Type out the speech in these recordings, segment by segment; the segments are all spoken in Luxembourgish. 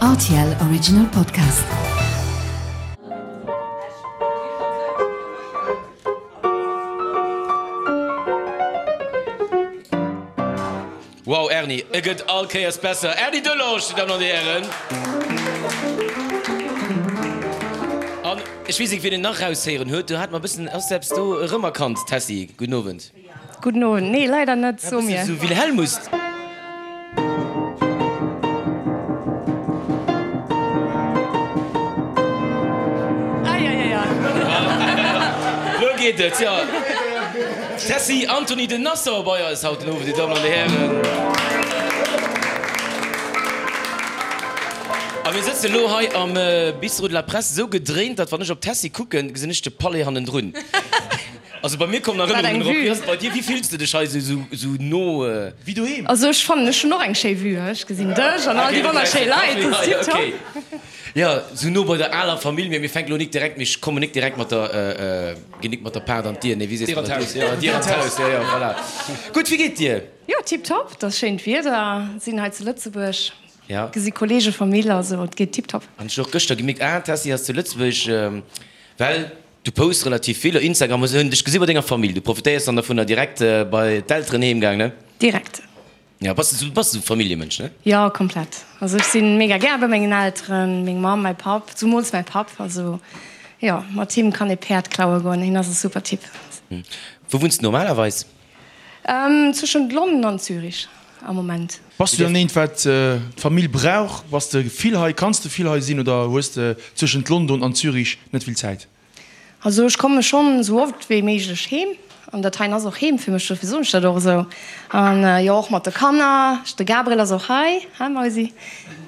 Rtl Original Podcast. Wow Erny, e gëtt all Kéiers besser. Erny Delorge, Dir Dammen an Dir Hären. An ech weess nik wien en nach raushéieren huet, do hat mer e bëssen, ass de eppes do erëmerkannt, Tessy? Gudden Owend. Gudden Owend. Nee, leider net, so mir. Sou Wilhelmus. Ah ja, ja, ja. Lo geet et, jo. Tessy Antony de Nassau bei eis haut den Owend, Dir Dammen an Dir Hären. A mir sëtzen elo hei am Bistrot de la Presse, esou gedréint, datt wann ech op d'Tessy kucken, gesinn ech de Palais hannendrun. Also bei mir kommen Erënnerungen erop. Wéi ass et bei dir? Wéi fills de dech hei esou no? Wéi doheem. Also ech fannen ech hunn och eng schéi Vue, ech gesinn dech an all déi wonnerschéi Leit, dat ass tiptop. Jo, esou no bei der aler Famill, mee mir fänken elo nik direkt, mir kommen nik direkt mat der, ginn nik mat der Paart an d'Dier, nee wéi sees de dat? Dier an d'Haus. Dier an d'Haus, jo jo, voilà. Gutt, wéi geet dir? Jo, tiptop, et ass schéint Wieder, sinn hei zu Lëtzebuerg, gesi Kollege, Famill, also et geet tiptop. An ech hunn och gëschter gemierkt, ah d'Tessy ass zu Lëtzebuerg, well Du posts relativ vill op Instagram, hunn dech gesi bei denger Famill. Du profitéiers dann dovunner direkt bei d'Elteren heem gaang, ne? Direkt. Ja, bass du bass esou Familljemënsch, ne? Jo, komplett. Also ech sinn mega gär bei mengen Elteren, meng Mamm, mäi Papp, zumools mäi Papp. Also jo, mat him kann ee Päerd klaue goen, hien ass e super Typ. Wou wunns de normalerweis? Zwëschent London an Zürich am Moment. Bass du dann eent wat d'Famill brauch? Bass de vill hei? Kanns de vill hei sinn oder hues de zwëschent London an Zürich net vill Zäit? Also ech komme schonn esou oft wéi méiglech heem an dat heien ass och heem fir mech, dofir soen ech dat och esou. An jo och mat de Kanner, de Gabriel ass och hei, hi Mausi,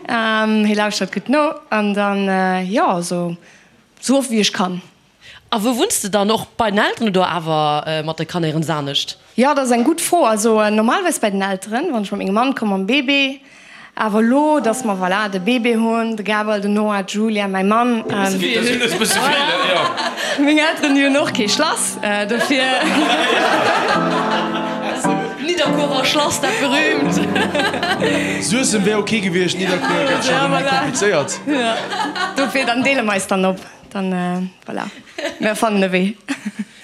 hie lauschtert gutt no an dann jo also esou oft wéi ech kann. A wou wunns de dann? Och bei den Elteren oder awer mat de Kanner iergens anescht? Jo, dat ass eng gutt Fro. Also normalerweis bei den Elteren, wann ech mat mengem Mann komm mam Bébé. Awer elo, dass mer, voilà, de Bébé hunn, de Gabriel, den Noah, d'Julia, mäi Mann. Meng Elteren, déi hunn och kee Schlass, dofir. Nidderkuerer Schlass, dat berühmt. Suessem wär ok gewiescht, Nidderkuer gëtt scho rëm méi komplizéiert. Dofir, dann deele mer eis dann op. Dann voilà, mir fannen e Wee.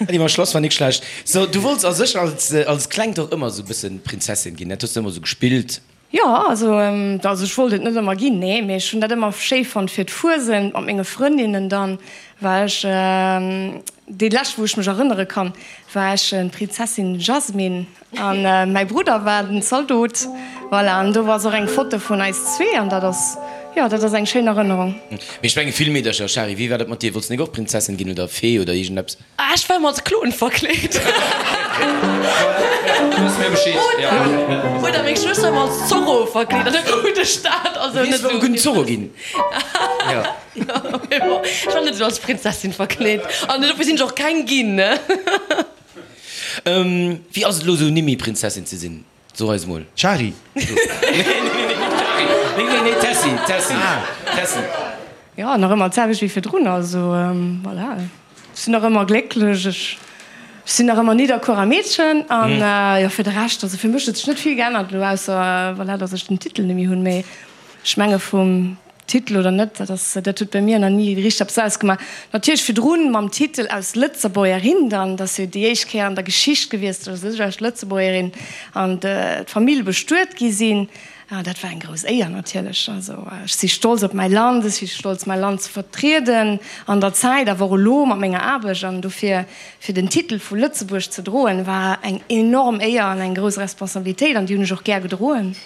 Déi mam Schlass war nik schlecht. So, du wollts a sech als als Klengt och ëmmer sou bëssen Prinzessin ginn, dat hues de ëmmer sou gespillt? Jo, also also ech wollt et net ëmmer ginn, nee, mee ech hunn dat ëmmer schéi fonnt fir d'Fuesent mat menge Frëndinnen. Dann war ech, déi lescht wou ech mech erënnere kann, war ech d'Prinzessin Jasmine. An mäi Brudder war den Zaldot. Voilà, an do ass och eng Foto vun eis zwee an dat ass, jo, dat ass eng schéin Erënnerung. Mee ech menge vill Meedercher. Shari, wéi war dat mat dir? Wollts de nik och Prinzessin ginn oder Fee oder iergendeppes? Ah, ech war ëmmer als Klon verkleet. Oder meng Schwëster war als Zorro verkleet an da krut ech dat. Also net esou. Gudden Zorro ginn. Jo, mee bon, ech war net esou als Prinzessin verkleet an dofir sinn ech och keng ginn, ne. Wéi ass et elo sou Nimmi Prinzessin ze sinn? So eis mol. Shari. Nee nee nee Shari. Nee nee nee Tessy Tessy Tessy. Jo nach ëmmer d'selwecht wéi virdrun, also voilà ech sinn nach ëmmer glécklech, ech sinn nach ëmmer Nidderkuerer Meedchen an jo fir de Rescht, also fir mech huet sech net vill geännert elo ausser voilà datt ech den Titel net méi hunn, mee ech menge vum Titel oder net, dat ass, dat huet bei mir nach ni richteg eppes ausgemaach. Natierlech virdrun mam Titel aus Lëtzebuergerin dann, dat ass jo déi éischt Kéier an der Geschicht gewiescht, datt ech als Lëtzebuergerin an d'Famill bestuet gi sinn. Dat war eng grouss Éier natierlech. Also ech si stolz op mäi Land, ech si stolz mäi Land ze vertrieden an der Zäit, awer och elo mat menger Aarbecht. An dofir, fir den Titel vu Lëtzebuerg ze droen, war eng enorm Éier an eng grouss Responsabilitéit an déi hunn ech och gär gedroen.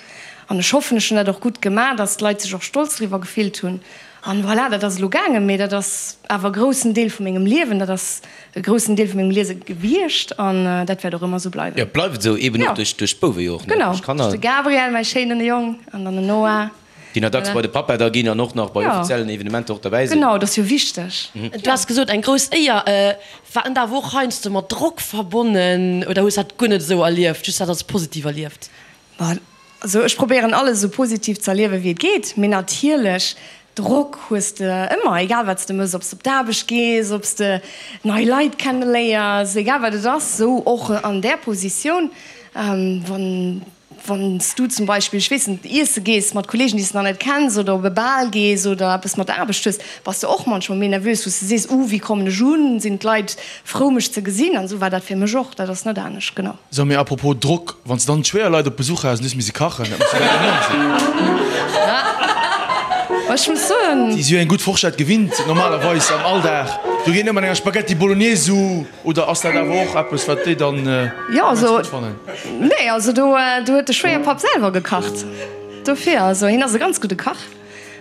An ech hoffen, ech hunn dat och gutt gemaach, dass d'Leit sech och stolz driwwer gefillt hunn. An voilà, dat ass elo gaangen, mee dat ass awer e groussen Deel vu mengem Liewen, dat ass e groussen Deel vu mengem Liese gewiescht an dat wäert och ëmmer esou bleiwen. Jo, bleift esou, eben och duerch d'Bouwe jo och, ne? Genau, duerch de Gabriel, mäi schéinen Jong, an dann den Noah. Déi nach dacks bei de Pappa da ginn an och nach bei offiziellen Evenementer och derbäi sinn. Genau, dat ass jo wichteg. Du has gesot, eng grouss Éier. War en da awer och heiansdo mat Drock verbonnen oder hues dat guer net esou erlieft, just dat als positiv erlieft? Bon, also ech probéieren alles esou positiv ze erliewen wéi et geet, mee natierlech Drock hues de ëmmer, egal wat s de mëss, ob s de op d'Aarbecht gees, ob s de nei Leit kenneléiers, egal wat et ass, esou och an där Positioun, wann. Wann s du zum Beispill, ech weess net, iesse gees mat Kollegen, déi s de nach net kenns, oder op e Bal gees oder eppes mat der Aarbecht hues, bass de och manchmol méi nervös, wou s de sees, Uh, wéi kommen ech un? Sinn d'Leit frou, mech ze gesinn? An esou war dat fir mech och. Dat ass net anescht, genau. So, mee apropos Drock, wann s de dann d'Schwéierleit op Besuch has an du hues misse kachen, dat muss jo dann enorm sinn. Ech muss soen. Déi si jo eng gutt Forschett gewinnt, normalerweis am Alldag. Do geet net mat enger Spaghetti Bolognese u. Oder ass dat awer och eppes, wat déi dann immens gutt fannen? Nee, also do huet de Schwéierpapp selwer gekacht. Dofir, also hien ass e ganz gudde Kach.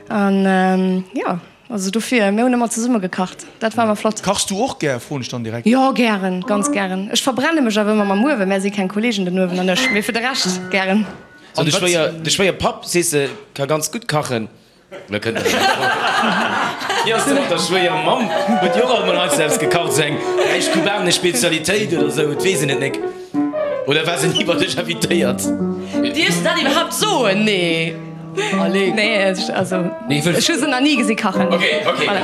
An jo, also dofir, mir hunn ëmmer zesumme gekacht. Dat war ëmmer flott. Kachs du och gär, froen ech dann direkt. Jo, gären, ganz gären. Ech verbrenne mech awer ëmmer mam Uewen. Mär si keng Kollegen, den Uewen an ech. Mee fir de Rescht gären. So, de Schwéier, de Schwéierpapp, sees de, ka ganz gutt kachen. Lo kënnt erëm eng Fro. Wéi ass de mat der Schwéiermamm? Huet déi och alt mol eis eppes gekacht, esou eng räich kubanesch Spezialitéit oder esou? Et weess een et nek. Oder war se ni bei dech invitéiert? Dierfs de dat iwwerhaapt soen? Nee. Allez. Nee, also ech hu se nach ni gesi kachen. Ok, ok, voilà.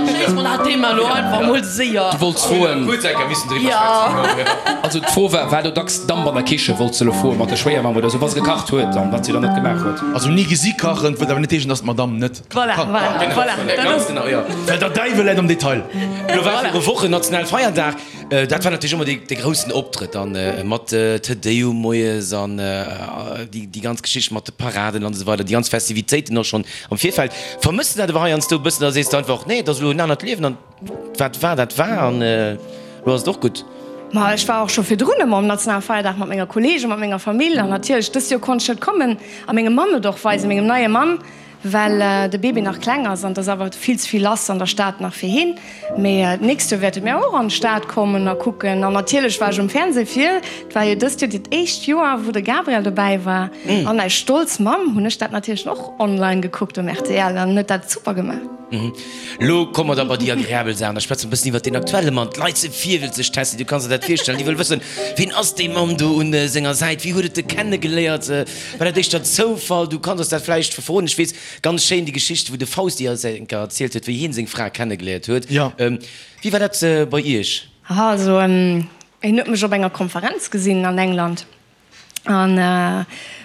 Schléisse mer dat Thema elo einfach mol séier. Du wollts froen. Kuerz eng Kéier missen driwwer schwätzen. Also d'Fro war, war do dacks Damp an der Kichen, wollts de elo froen, mat der Schwéiermamm oder esou, wa se gekacht huet an wat si dann net gemaach huet. Also ni gesi kachen, wëllt awer net heeschen, dass d'Madame net kache kann. Voilà, voilà, voilà. Ganz genau, jo. Well der Däiwel läit am Detail. Elo war viru Wochen Nationalfeierdag. Dat war natierlech ëmmer dee groussen Optrëtt dann mat Te Deum moies an déi ganz Geschicht mat de Paraden an esou weider, déi ganz Festivitéiten och schonn am Virfeld. Vermëss de dat awer heiansdo e bëssen oder sees de einfach, nee, et ass elo en anert Liewen an wat war, dat war an elo ass et och gutt? Ma ech war och scho virdrun ëmmer um Nationalfeierdag mat menger Kolleegen, mat menger Famill an natierlech dëst Joer konnt ech net kommen a mengem Mann et och weisen, mengem neie Mann. Well de Bébé nach kleng ass an et ass awer vill ze vill lass an der Stad nach fir hien. Mee d'nächst Joer wäerte mir och an d'Stad kommen a kucken. An natierlech war ech um Fernseh fir, et war jo dëst Joer dat éischt Joer, wou de Gabriel dobäi war. An als stolz Mamm hunn ech dat natierlech och online gekuckt um rtl an en huet dat super gemaach. Lo komme mer da bei déi agreabel Saachen. Da schwätze mer e bëssen iwwert deen aktuelle Mann. D'Leit si virwëlzeg, Tessy, du kanns der dat virstellen. Déi wëlle wëssen, Ween ass dee Mann do un senger Säit? Wéi huet et e kennegeléiert? War dat éischter Zoufall? Du kanns eis dat vläicht verroden. Ech weess, ganz schéin déi Geschicht, wou de Fausti eis eng Kéier erzielt huet, wéi hien seng Fra kennegeléiert huet. Wéi war dat bei iech? Aha, also hien huet mech op enger Konferenz gesinn an England an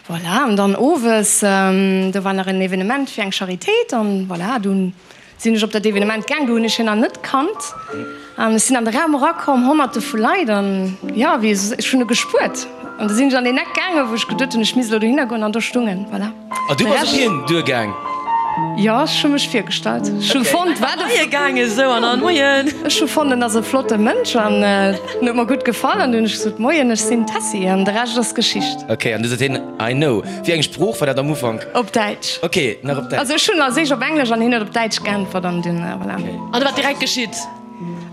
voilà, an dann owes, do war nach en Evenement fir eng Charitéit an voilà, dunn Sinn ech op dat Evenement gaang, do hunn ech hien nach net kannt an ech sinn an de Raum erakomm, honnerte vu Leit an jo, wéi ech hunn e gespuert an du sinn ech an deen Eck gaangen, wou ech geduet hunn, ech misst elo dohinner goen an do stung en, voilà. A du bass op hien duergaang? Jo, ech hu mech virgestallt. Ech hu fonnt, wat e. Moie gaange sou an dann, Moien. Ech hu fonnt, en ass e flotte Mënsch an en huet mer gutt gefall an du hunn ech gesot, Moien, ech sinn d'Tessy an de Rescht ass Geschicht. Ok, an du sot hien, I know. Wéi eng Sprooch war dat am Ufank? Op Däitsch. Ok, nach op Däitsch. Also ech hunn als éischt op Englesch an hien huet op Däitsch geäntwert an dunn, voilà. An da wat direkt geschitt?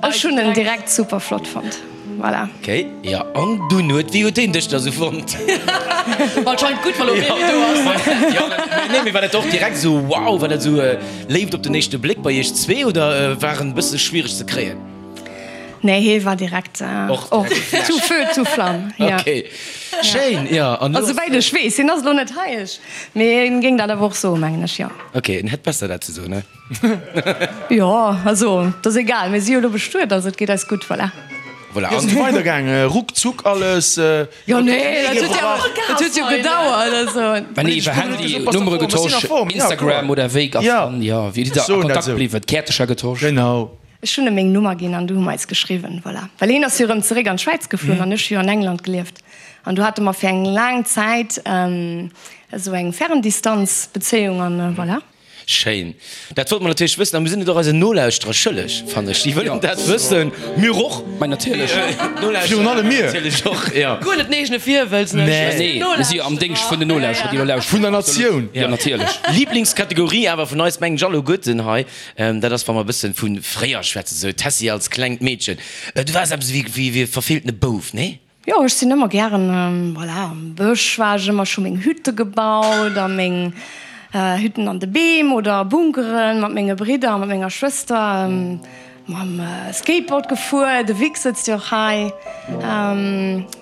Ech hunn en direkt super flott fonnt, voilà. Ok, jo an dunn huet, wéi huet hien dech da sou fonnt? Anscheinend gutt, wa lo Baby do ass. Jo, nee, mee war dat och direkt sou wow, war dat sou Léift op den éischte Bléck bei iech zwee oder war en bësse schwiereg ze kréien? Nee, hee war direkt och tout feu, tout flamme. Ok, schéin, jo. Also souwäit ech weess, hien ass elo net hei, ech, mee hien géing dat awer och soen, mengen ech, jo. Ok, en hätt besser dat ze soen, ne? Jo, also et ass egal, mir si jo elo bestuet, also et geet eis gutt, voilà. Voilà, Wéi ass et du weidergaang? Ruckzuck alles? Jo, nee, dat huet jo, dat huet jo gedauert, also. Mä nee, iwwer Handy, Nummere getosch, Instagram oder wéi ass dann, jo, wéi sidd der a Kontakt bliwwen? Käertecher getosch? Genau. Ech hunn em meng Nummer ginn an du hu mer eis geschriwwen, voilà. Well hien ass jo erëm zeréck an d'Schwäiz geflunn an ech hu jo an England gelieft an du hate mer fir eng laang Zäit esou eng Ferndistanzbezéiung an voilà. Schéin. Dat wollte mer natierlech wëssen a mir sinn et och eisen Nolauschterer schëlleg, fannen ech. Déi wëllen dat wëssen. Mir och. Mä natierlech. Virun allem mir. Natierlech och, jo. Guer net den eegene Virwëlz, ne? Nee, nee, mir si jo am Déngscht vun den Nolauschterer, déi elo lauschteren. Vun der Natioun. Jo, natierlech. Liblingskategorie awer vun eis, mengen ech, alleguerten hei. Dat ass, wa mer e bëssen vu fréier schwätzen, sou d'Tessy als klengt Meedchen. Du waars eppes ewéi e verfeeltene Bouf, nee? Jo, ech sinn ëmmer gären, voilà, am Bësch war ech ëmmer, ech hu meng Hütte gebaut a meng Hütten an de Beem oder Bunkeren mat menge Bridder a mat menger Schwëster. Mam Skateboard gefuer, de Vic sëtzt jo och hei.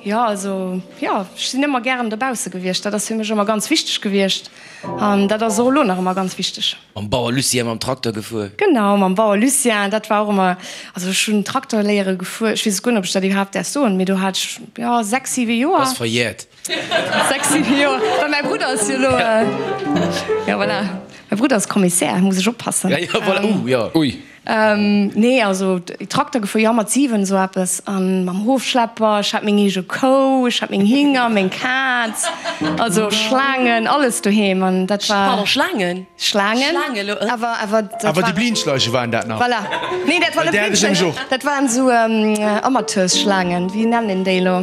Jo, also jo, ech sinn ëmmer gären dobausse gewiescht. Dat ass fir mech ëmmer ganz wichteg gewiescht an dat ass och elo nach ëmmer ganz wichteg. Mam Bauer Lucien mam Trakter gefuer? Genau, mam Bauer Lucien, dat war och ëmmer, also ech hunn Trakter léiere gefuer, ech weess guer net, ob ech dat iwwerhaapt däerf soen, mee do hat ech, jo, 6, 7 Joer. Ass verjährt. 6, 7 Joer, well mäi Brudder ass jo elo, jo voilà, mäi Brudder ass Kommissär, muss ech oppassen. Ja, ja, voilà, uh, jo. Ui. Nee, also Trakter gefuer, jo, mat 7 esou eppes, an mam Hofschlepper. Ech hat meng eege Kou, ech hat meng Hinger, meng Kaz, also Schlaangen, alles doheem, an dat war. Pardon, Schlaangen? Schlaangen, Schlaangen, lo, awer, awer dat Awer war. déi Blindschleiche waren dat nach? Voilà. Nee, dat war Well net där hat ech nämlech Blindschleichen, och. dat waren esou Amateursschlaangen, wéi nennen een déi elo?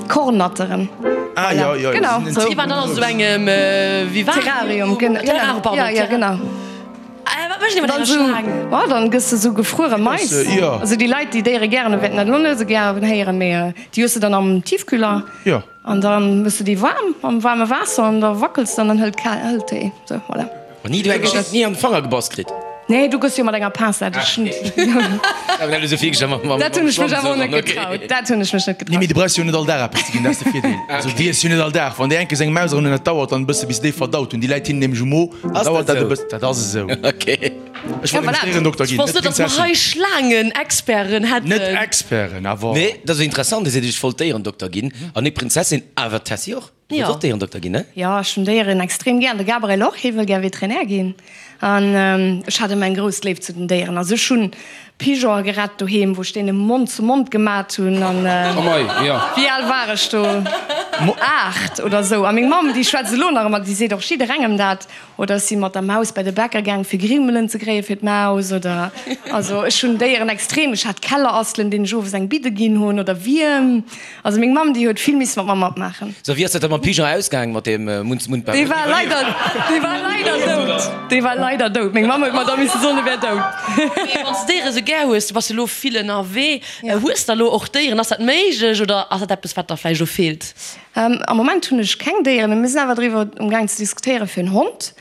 Kornnatteren. Ah, jo, jo, Genau, déi sinn esou. Déi waren dann an esou engem Vivarium? Terrarium, genau. Terrarium, pardon, Ja, ja, genau. Wat mécht een mat Dann enger sou, Schlaang? oh, dann gëss de sou gefruere Mais. Jo. Also déi Leit, déi Déiere gären hunn, wäerten dat elo net esou gären héieren, mee déi hues de dann am Tiefkühler. Jo. An da méchs de déi waarm am waarme Waasser an da wackels de an dann hëlt kal, hëlt déi. Sou, voilà. An ni du eng Geschicht ni an de Fanger gebass kritt? Nee, du gëss jo mat enger Pincette. Ech hunn. Dat hunn ech mech awer och net getraut. Dat hunn ech mech net Nee, mee getraut. du brauchs jo net all Dag eppes ze ginn, dat ass de Virdeel. Also déi iess jo net all Dag. Wann déi enke seng Maus eran hunn, dat dauert dann e bësse bis se déi verdaut hunn. Déi läit hinnen nämlech um Mo, dann dauert dat e bëssen. Dat ass esou. Okay. Ech wollt nämlech Déierendokter Ech ginn, wosst net net, datt mer Prinzessin. hei Schlaangenexperten hätten. Net Experten, awer. Nee, dat ass interessant. Dir seet, ech wollt Déierendokter ginn an net Prinzessin, awer d'Tessy och. Du wëlls och Déierendokter ginn, ne? Jo, ech hunn Déieren extrem gär. An de Gabriel och, hie wëll gär Veterinär ginn. An ech hat ëmmer eng grouss Léift zu den Déieren. Also ech hunn Pigeonen gerett doheem, wou ech deene Mond zu Mond gemat hunn. An wéi al war ech do? 8 oder esou. A meng Mamm, déi schwätzt elo nach ëmmer, déi seet och jidderengem dat. Oder ech si mat der Maus bei de Bäcker gaang fir Grimmelen ze kréie fir d'Maus oder also ech hunn Déieren extrem. Ech hat Kellerasselen, deenen ech owes eng Bidde ginn hunn oder Wierm. Also meng Mamm déi huet vill misse mat mer matmaachen. So, wéi ass dat da mam Pigeon ausgaang mat deem Mund-zu-Mund-Bau? Dee war leider, dee war leider dout. Dee war leider dout. Meng Mamm huet mer da misse soen, e wär dout. Mee wann s de Déiere sou gär hues, du bass jo elo vill ënnerwee, hues de elo och Déieren? Ass dat méiglech oder ass dat eppes wat der vläicht elo feelt? Am Moment hunn ech keng Déieren, mee mir sinn awer driwwer um gaang ze diskutéiere fir en Hond.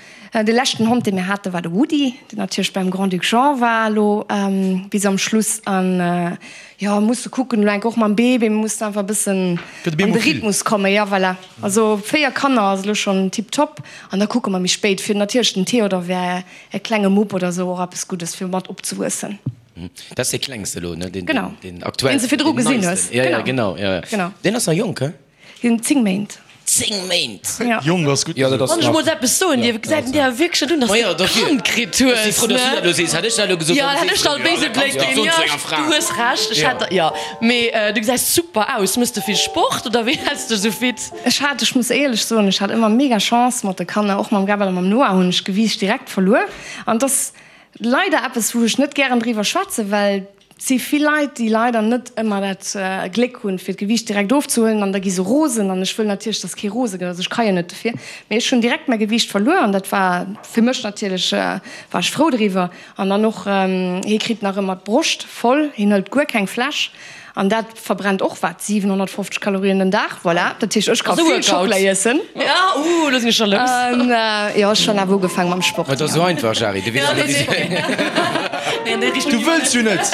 De leschten Hond, dee mir hate war de Woody, deen natierlech beim Grand-Duc Jean war elo bis am Schluss. An jo, musse kucken elo enk och mam Bébé, mir mussen einfach e bëssen an de Rhythmus kommen. Jo, voilà. Also 4 Kanner ass elo schonn tiptop. An da kucke mer méi spéit. Fir natierlech den Theodor wär e klenge Mupp oder esou och eppes Guddes fir mat opzewuessen. Dat ass dee klengste elo, ne? Genau. Deen aktuellsten. Deen s de virdru gesinn hues. Ja, ja, genau. Ja, ja. Genau. Deen ass nach jonk, he? Deen huet 10 Méint. 10 Méint! Ja. Jonk ass gutt Ja, dat gesot. ass Wann ech nach. mol eppes soen dierf, gesäit en dir awer wierklech net un, dass Ma de jo, e Kand kritt hues, Ech si frou, dass du ne? dat elo sees. Hätt ech dat elo gesot, Ja, dann hätt ech sees der du, e béise ja, Bléck dat ginn. soen Ja, zu enger Fra. du hues Recht, ech hätt der, ja. Mee du gesäis super aus. Mëss de vill Sport oder wéi häls de dech esou fit? Ech hat, ech muss éierlech soen, ech hat ëmmer mega Chance mat de Kanner. Och mam Gabriel a mam Noah hunn ech Gewiicht direkt verluer. An et ass Leider eppes wou ech net gären driwwer schwätzen, well et si vill Leit déi leider net ëmmer dat Gléck hunn fir d'Gewiicht direkt ofzehuelen an da gi se rosen an ech wëll natierlech dass kee rose gëtt, also ech ka jo net dofir, mee ech hunn direkt mäi Gewiicht verluer an dat war fir mech natierlech, war ech frou driwwer an dann och hie kritt nach ëmmer d'Broscht voll, hien hëlt guer keng Fläsch An dat verbrennt och wat, 750 Kalorien den Dag, voilà. Dat heescht, ech ka vill Schockela iessen. Ja, uh, lo sinn ech scho lous. An jo, ech hunn awer ugefaangen mam Sport. Ma et ass esou einfach, Shari, du weess net, wéi Du wëlls jo net!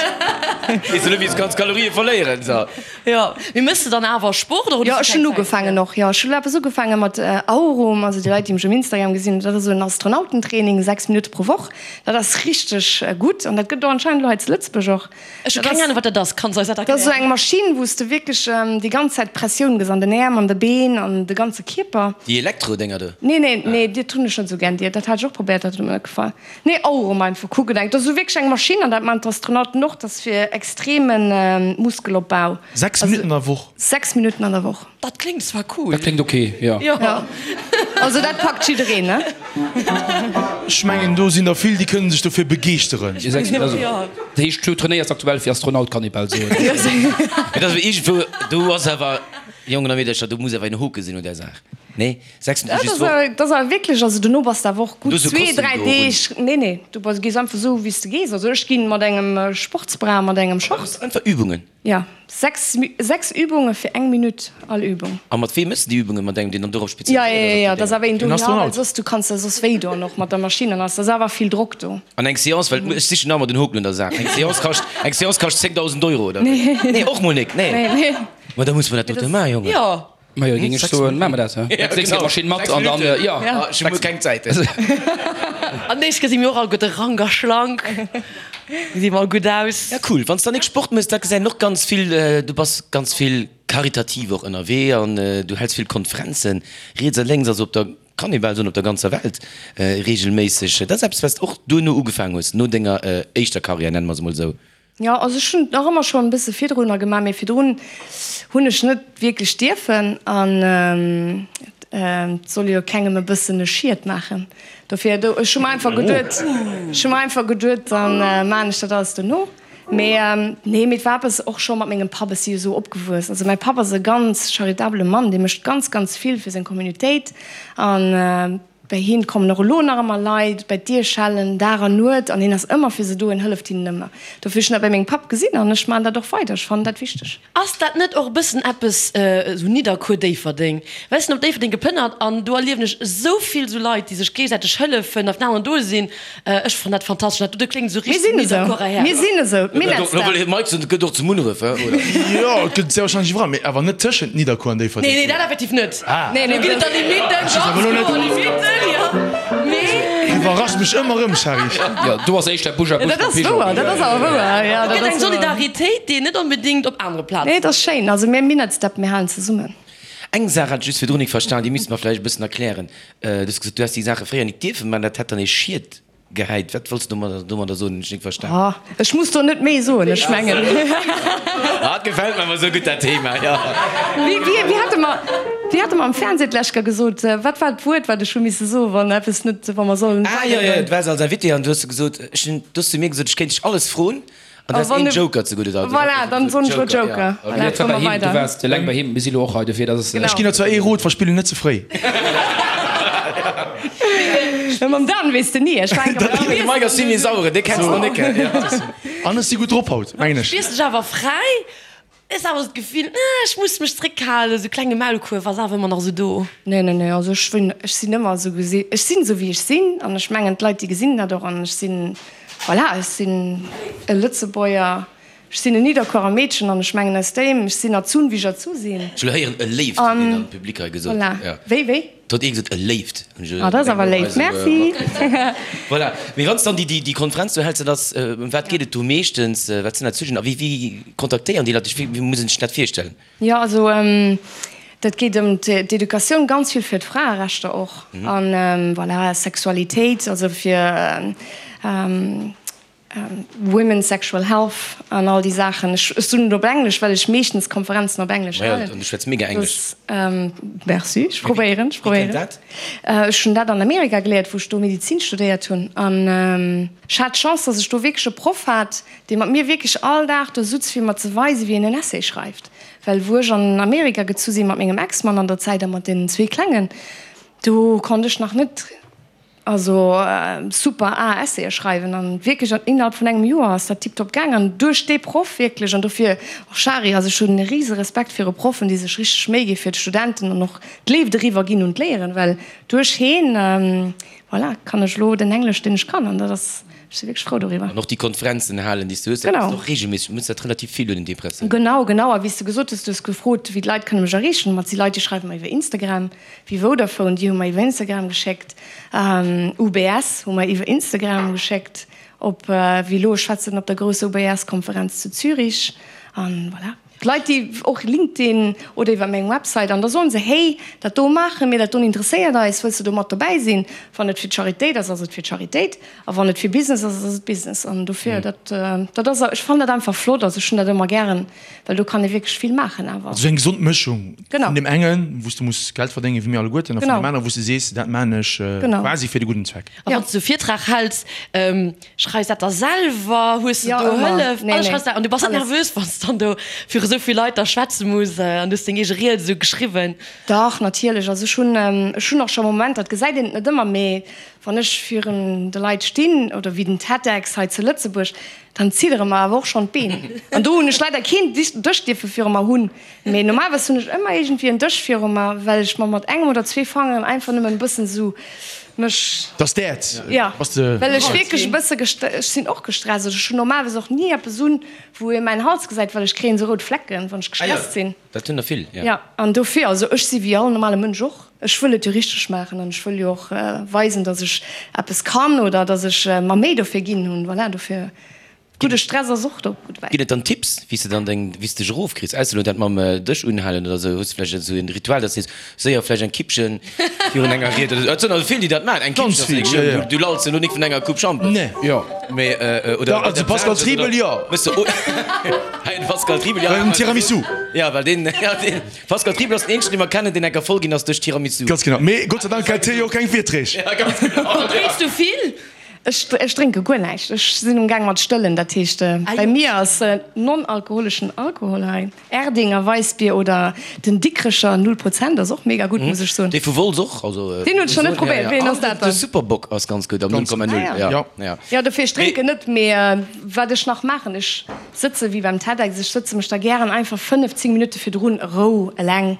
Weess net, wéi s kanns Kalorië verléieren, so. Jo, mee méchs de dann awer Sport oder hues du Jo, keng ech hunn Zäit ugefaangen fir? och, jo. Ech hunn elo eppes ugefaange mat Aurum, also déi Leit, déi mech um Instagram gesinn, dat ass esou en Astronautentraining, 6 Minutte pro Woch. Dat ass richteg gutt an dat gëtt och anscheinend elo hei zu Lëtzebuerg och. Ech hu keng Ahnung wat dat ass, kanns eis dat Dat ass esou erklären? eng Maschinn wou s de wierklech déi ganz Zäit Pressioun gëss an den Äerm, an de Been, an de ganze Kierper. Déi Elektro-Dénger do? Nee, nee, nee, dat hunn ech net esou gär. Déi, dat hat ech och probéiert, dat huet mer net gefall. Nee, Aurum einfach kucken. Dat ass esou wierklech eng Maschinn an dat maachen d'Astronauten och, dat ass fir extreme Muskelopbau. 6 Minutten an der Woch? 6 Minutten an der Woch. Dat kléngt zwar cool. Dat kléngt ok, jo. Jo. Also dat packt jiddereen, ne? Ech mengen do sinn der vill, déi kënnen sech dofir begeeschteren. Dat heescht, du trainéiers aktuell fir Astronaut, kann ee bal soen. Mee dat ass iergendwou, do ass awer. Jongen a Meedercher, do muss awer en Hoke sinn un där Saach. Nee, 6 Minutten just d'Woch. Dat ass awer wierklech, also dono bass de awer och gutt zwee, dräi Deeg. Nee, nee, du bass, gees einfach esou wéi s de gees. Also ech ginn mat engem Sportsbra, mat engem Short. Einfach Übungen? Jo, 6, 6 Übunge fir eng Minutt all Übung. A mat weem méchs de déi Übungen? Mat engem, deen dann dorop spezialiséiert ass? Jo, jo, jo, dat ass awer een do, jo, well soss, du kanns der soss wéi doen och mat der Maschinn an alles, dat ass awer vill Drock do. An eng Seance, well ech sichen nach ëmmer den Hoken un der Saach, eng Seance kascht, eng Seance kascht 10.000 Euro, oder wéi? Nee, och mol nik, nee. Nee, nee. Ma da muss mer dat dote maachen, Jongen. Jo. Majo, géing ech soen, maache mer dat, he? Ja, Nächst Kéier d'Maschinn mat an dann, jo. Ech hu muer keng Zäit. An nächst Kéier si mir och all gutt rank a schlank, gesi mer all gutt aus. Ja, cool. Wann s dann nik Sport méchs, da gesäit een och ganz vill, du bass ganz vill karitativ och ënnerwee an du häls vill Konferenzen, riets a lénks, also op der, kann ee bal soen, op der ganzer Welt reegelméisseg. Dat ass eppes, wat s de och duerno ugefaangen hues, no denger éischter Karriär, nenne mer se mol esou. Jo, also ech hunn et nach ëmmer schonn e bësse virdrunner gemaach, mee virdrun hunn ech net wierklech dierfen an et soll jo kengem e bëssen e Schied maachen. Dofir, do, ech hu mer einfach geduet, ech hu mer einfach geduet, dann maachen ech dat alles dono. Mee nee, mee et war eppes och scho mat mengem Papp, ech si jo esou opgewuess. Also mäi Papp ass e ganz charitabele Mann, dee mécht ganz, ganz vill fir seng Communautéit an Bei hien kommen och elo nach ëmmer Leit bei d'Dier schellen, Dag an Nuet, an hien ass ëmmer fir se do, en hëlleft hinnen ëmmer. Dofir ech hunn dat bei mengem Papp gesinn an ech maachen dat och weider, ech fannen dat wichteg. Ass dat net och e bëssen eppes esou Nidderkuer-Déifferdeng? Well ech sinn op Déifferdeng geplënnert an do erliewen ech esou vill esou Leit, déi sech géigesäiteg hëllefen a fir den aneren do sinn. Ech fannen dat fantastesch. Dat do kléngt esou Mir richteg sinn esou, Nidderkuerer Häerz. mir sinn esou, Lo wëll hie Mike soen, et gëtt och zu Munneref, he, oder? Jo, et gëtt sehr wahrscheinlech iwwerall, mee awer net tëschent Nidderkuer an Déifferdeng. Nee, nee, dat effektiv net. Ah. Nee, nee, Do ginn et da Limitten, ganz kloer Limitten, jo. Mee. Du iwwerraschs mech ëmmer erëm, Shari. Jo, do ass éischter Busch a Busch Dat mam ass Pigeon. wouer, dat ass awer wouer, jo, Et dat gëtt eng ass wouer. Solidaritéit, déi een net onbedéngt op anere Plazen. Nee, et ass schéin. Also mir Minettsdäpp, mir halen zesummen. Eng Saach hat ech just virdrun nik verstan, déi misste mer vläicht e bëssen erklären. Du hues gesot, du häss déi Saache fréier nik dierfen man, dat hätt dann ee Schied gehäit. Wat wollts du domadder soen? Hunn ech nik verstan. Oh, ech muss do net méi soen, ech mengen. Ah, et gefält mer awer esou gutt dat Thema, jo. Wéi, wéi, wéi hate mer, wéi hate mer am Fernseh d'lescht Kéier gesot, wat war d'Wuert, wat ech hu misse soen, wann eppes net, wa mer sollen Ah, jo, jo, weidergoen? du waars als Invité an du hues gesot, ech hunn, du hues zu mir gesot, ech kéint dech alles froen. An A du has wann een de Joker ze gudde. Also Voilà, dann soen ech lo Joker. Ja. Voilà, Dat war komme bei mer him, du weider. waars eleng bei him, mir si lo och hei, dofir dat ass. Genau. Ech ginn der zwar ee Rot, verspill en net ze fréi. Mä mam Dan weess de ni. Ech war eng Kéier bei De Mike ass zimmlech sauere, dee kenns de nach net. An ech si gutt drop haut, mengen ech. Spiers dech awer fräi? Hues awer esou d'Gefill, ech muss mech zréckhalen, esou klenge Maulkuerf ass awer ëmmer nach esou do. Nee, nee, nee, also ech wënn, ech sinn ëmmer esou gesi, ech sinn esou wéi ech sinn an ech mengen d'Leit déi gesinn dat och an ech sinn, voilà, ech sinn e Lëtzebuerger, ech sinn en Nidderkuerer Meedchen an ech mengen aus deem, ech sinn erzunn wéi ech erzu sinn. Ech wëll héieren e Léift huet een am Public hei gesot. Voilà, wéi, wéi? Do huet ee gesot, e Léift. Ah, dat ass awer léif, merci. Voilà. Mee wann s dann déi Konferenz do häls, dat ass, ëm wat geet et do meeschtens? Wat sinn dat Sujeten a wéi kontaktéieren déi Leit dech? Wéi muss een sech dat virstellen? Jo, also dat geet ëm d'Educatioun, ganz vill fir d'Fraerechter och an voilà, Sexualitéit, also fir Women's Sexual Health an all déi Saachen. Ech soen et op Englesch, well ech meeschtens Konferenzen op Englesch halen. An du schwätz mega Englesch. Merci, ech probéieren, ech probéieren. Wéi kënnt dat? Ech hunn dat an Amerika geléiert, wou ech do Medizin studéiert hunn. An ech hat d'Chance, dass ech do wierklech e Proff hat, dee mat mir wierklech all Dag do sutz, fir mer ze weisen, wéi een en Essay schreift. Well wou ech an Amerika gezu sinn, mat mengem Ex-Mann an der Zäit a mat deenen zwee Klengen, do konnt ech nach net Also super A Essayë schreiwen an wierklech an innerhalb vun engem Joer ass dat tiptop gaang an duerch dee Proff wierklech an dofir och Shari, also ech hunn e rise Respekt viru Proffen déi sech richteg Méi gi fir d'Studenten an och d'Léift eriwwer ginn un d'Léieren, well duerch heen voilà kann ech elo den Englesch deen ech kann an dat ass, ech si wierklech frou doriwwer. An och déi Konferenzen halen déi s du hues, dat Genau. ass och regelméisseg, du mëss dat relativ vill un den Depressiounen. Genau, genau a wéi s de gesot hues, du hues gefrot wéi d'Leit kënne mech erreechen, ma et si Leit déi schreiwe mer iwwer Instagram, Wéi Vodafone, déi hu mer iwwer Instagram geschéckt. UBS hu mer iwwer Instagram geschéckt. Op wéi elo, ech schwätzen op der grousser UBS-Konferenz zu Zürich. An voilà. D'Leit, déi och LinkedIn oder iwwer meng Website, an da soen se, hey, dat do maache mir, dat doen interesséiert eis, wëlls de do mat dobäi sinn? Wann et fir d'Charitéit ass, ass et fir d'Charitéit. A wann et fir Business ass, ass et Business. An dofir, dat, dat ass, ech fannen dat einfach flott. Also ech hunn dat ëmmer gären. Well do kann ee wierklech vill maachen awer. Also eng gesond Mëschung Genau. vun deem engen, wou s du muss Geld verdéngen, wéi mir alleguerten, a vun Genau. deem aneren, wou s du sees, dat maan ech Genau. quasi fir de gudden Zweck. A wann s du e Virtrag häls, schreifs dat da selwer? Hues de Jo, do ëmmer. Hëllef? Nee, Alles nee. schreifs de an du bass net Alles. nervös, wann s dann do viru sou. esou vill Leit da schwätze muss an du hues deng eege Ried esou geschriwwen? Dach, natierlech. Also ech hunn, ech hunn och scho Momenter, dat gesäit een et net ëmmer, mee wann ech virun de Leit stinn oder wéi den TEDx hei zu Lëtzebuerg, dann ziddere mer awer och schonn d'Been. An do hunn ech leider keen Dësch dierfe viru mer hunn, mee normalerweis hunn ech ëmmer iergendwéi en Dësch viru mer, well ech mer mat engem oder zwee Fangeren einfach nëmmen e bëssen esou mech. Dass d'Äerz Jo, bass de. Well ech wierklech e bësse gest, ech sinn och gestresst. Also ech hunn normalerweis och ni eppes un, wou ee mäin Hals gesäit, well ech kréien esou rout Flecken, wann ech gestresst sinn. Dat hunn der vill, jo. Jo, an dofir, also ech si wéi all normale Mënsch och, ech wëll et jo richteg maachen an ech wëll jo och weisen, datt ech eppes kann oder datt ech mer Méi dofir ginn hunn. Voilà, dofir, gudde Stress ass och do gutt dobäi. Ginn et dann Tipps, wéi s de dann deng, wéi s de dech erofkriss? Ausser elo dat mam Dësch unhalen oder esou, hues de vläicht esou en Ritual, datt s de sees, séier vläicht eng Kippchen virun enger Ried oder esou? Et sinn also vill, déi dat maachen, eng Ganz Kippchen ass vill, jo, jo. Du lalls jo elo nik vun enger Coupe Schampes. Nee. Jo. Mee, oder Da, also Pascal Triebel, jo. Méchs de, Hei den Pascal Triebel, ja. Well den Tiramisu. Ja, well deen, ja, deen Pascal Triebel ass den eenzegen, dee mer kennen, deen enker voll ginn ass duerch Tiramisu. Ganz genau. Mee Gott sei Dank hält hie jo och keng Virträg. Ja, ganz genau. Drénks du vill? Ech, ech drénke guer näischt. Ech sinn um Gaang mat stëllen. Dat heescht, bei mir ass non-alkoholeschen Alkohol hei. Erdinger Weissbier oder den Dikrecher Null Prozent ass och mega gutt, muss ech soen. Dee vu Wolz och, also. Deen hunn ech nach net probéiert. Wéi een ass dat dann? De Superbock ass ganz gutt am 0,0. Ah ja. Ja. Jo, dofir, ech drénken net, mee wat ech nach maachen, ech sëtze wéi beim TEDx, ech sëtze mech da gären einfach 5, 10 Minutte virdrun a Rou eleng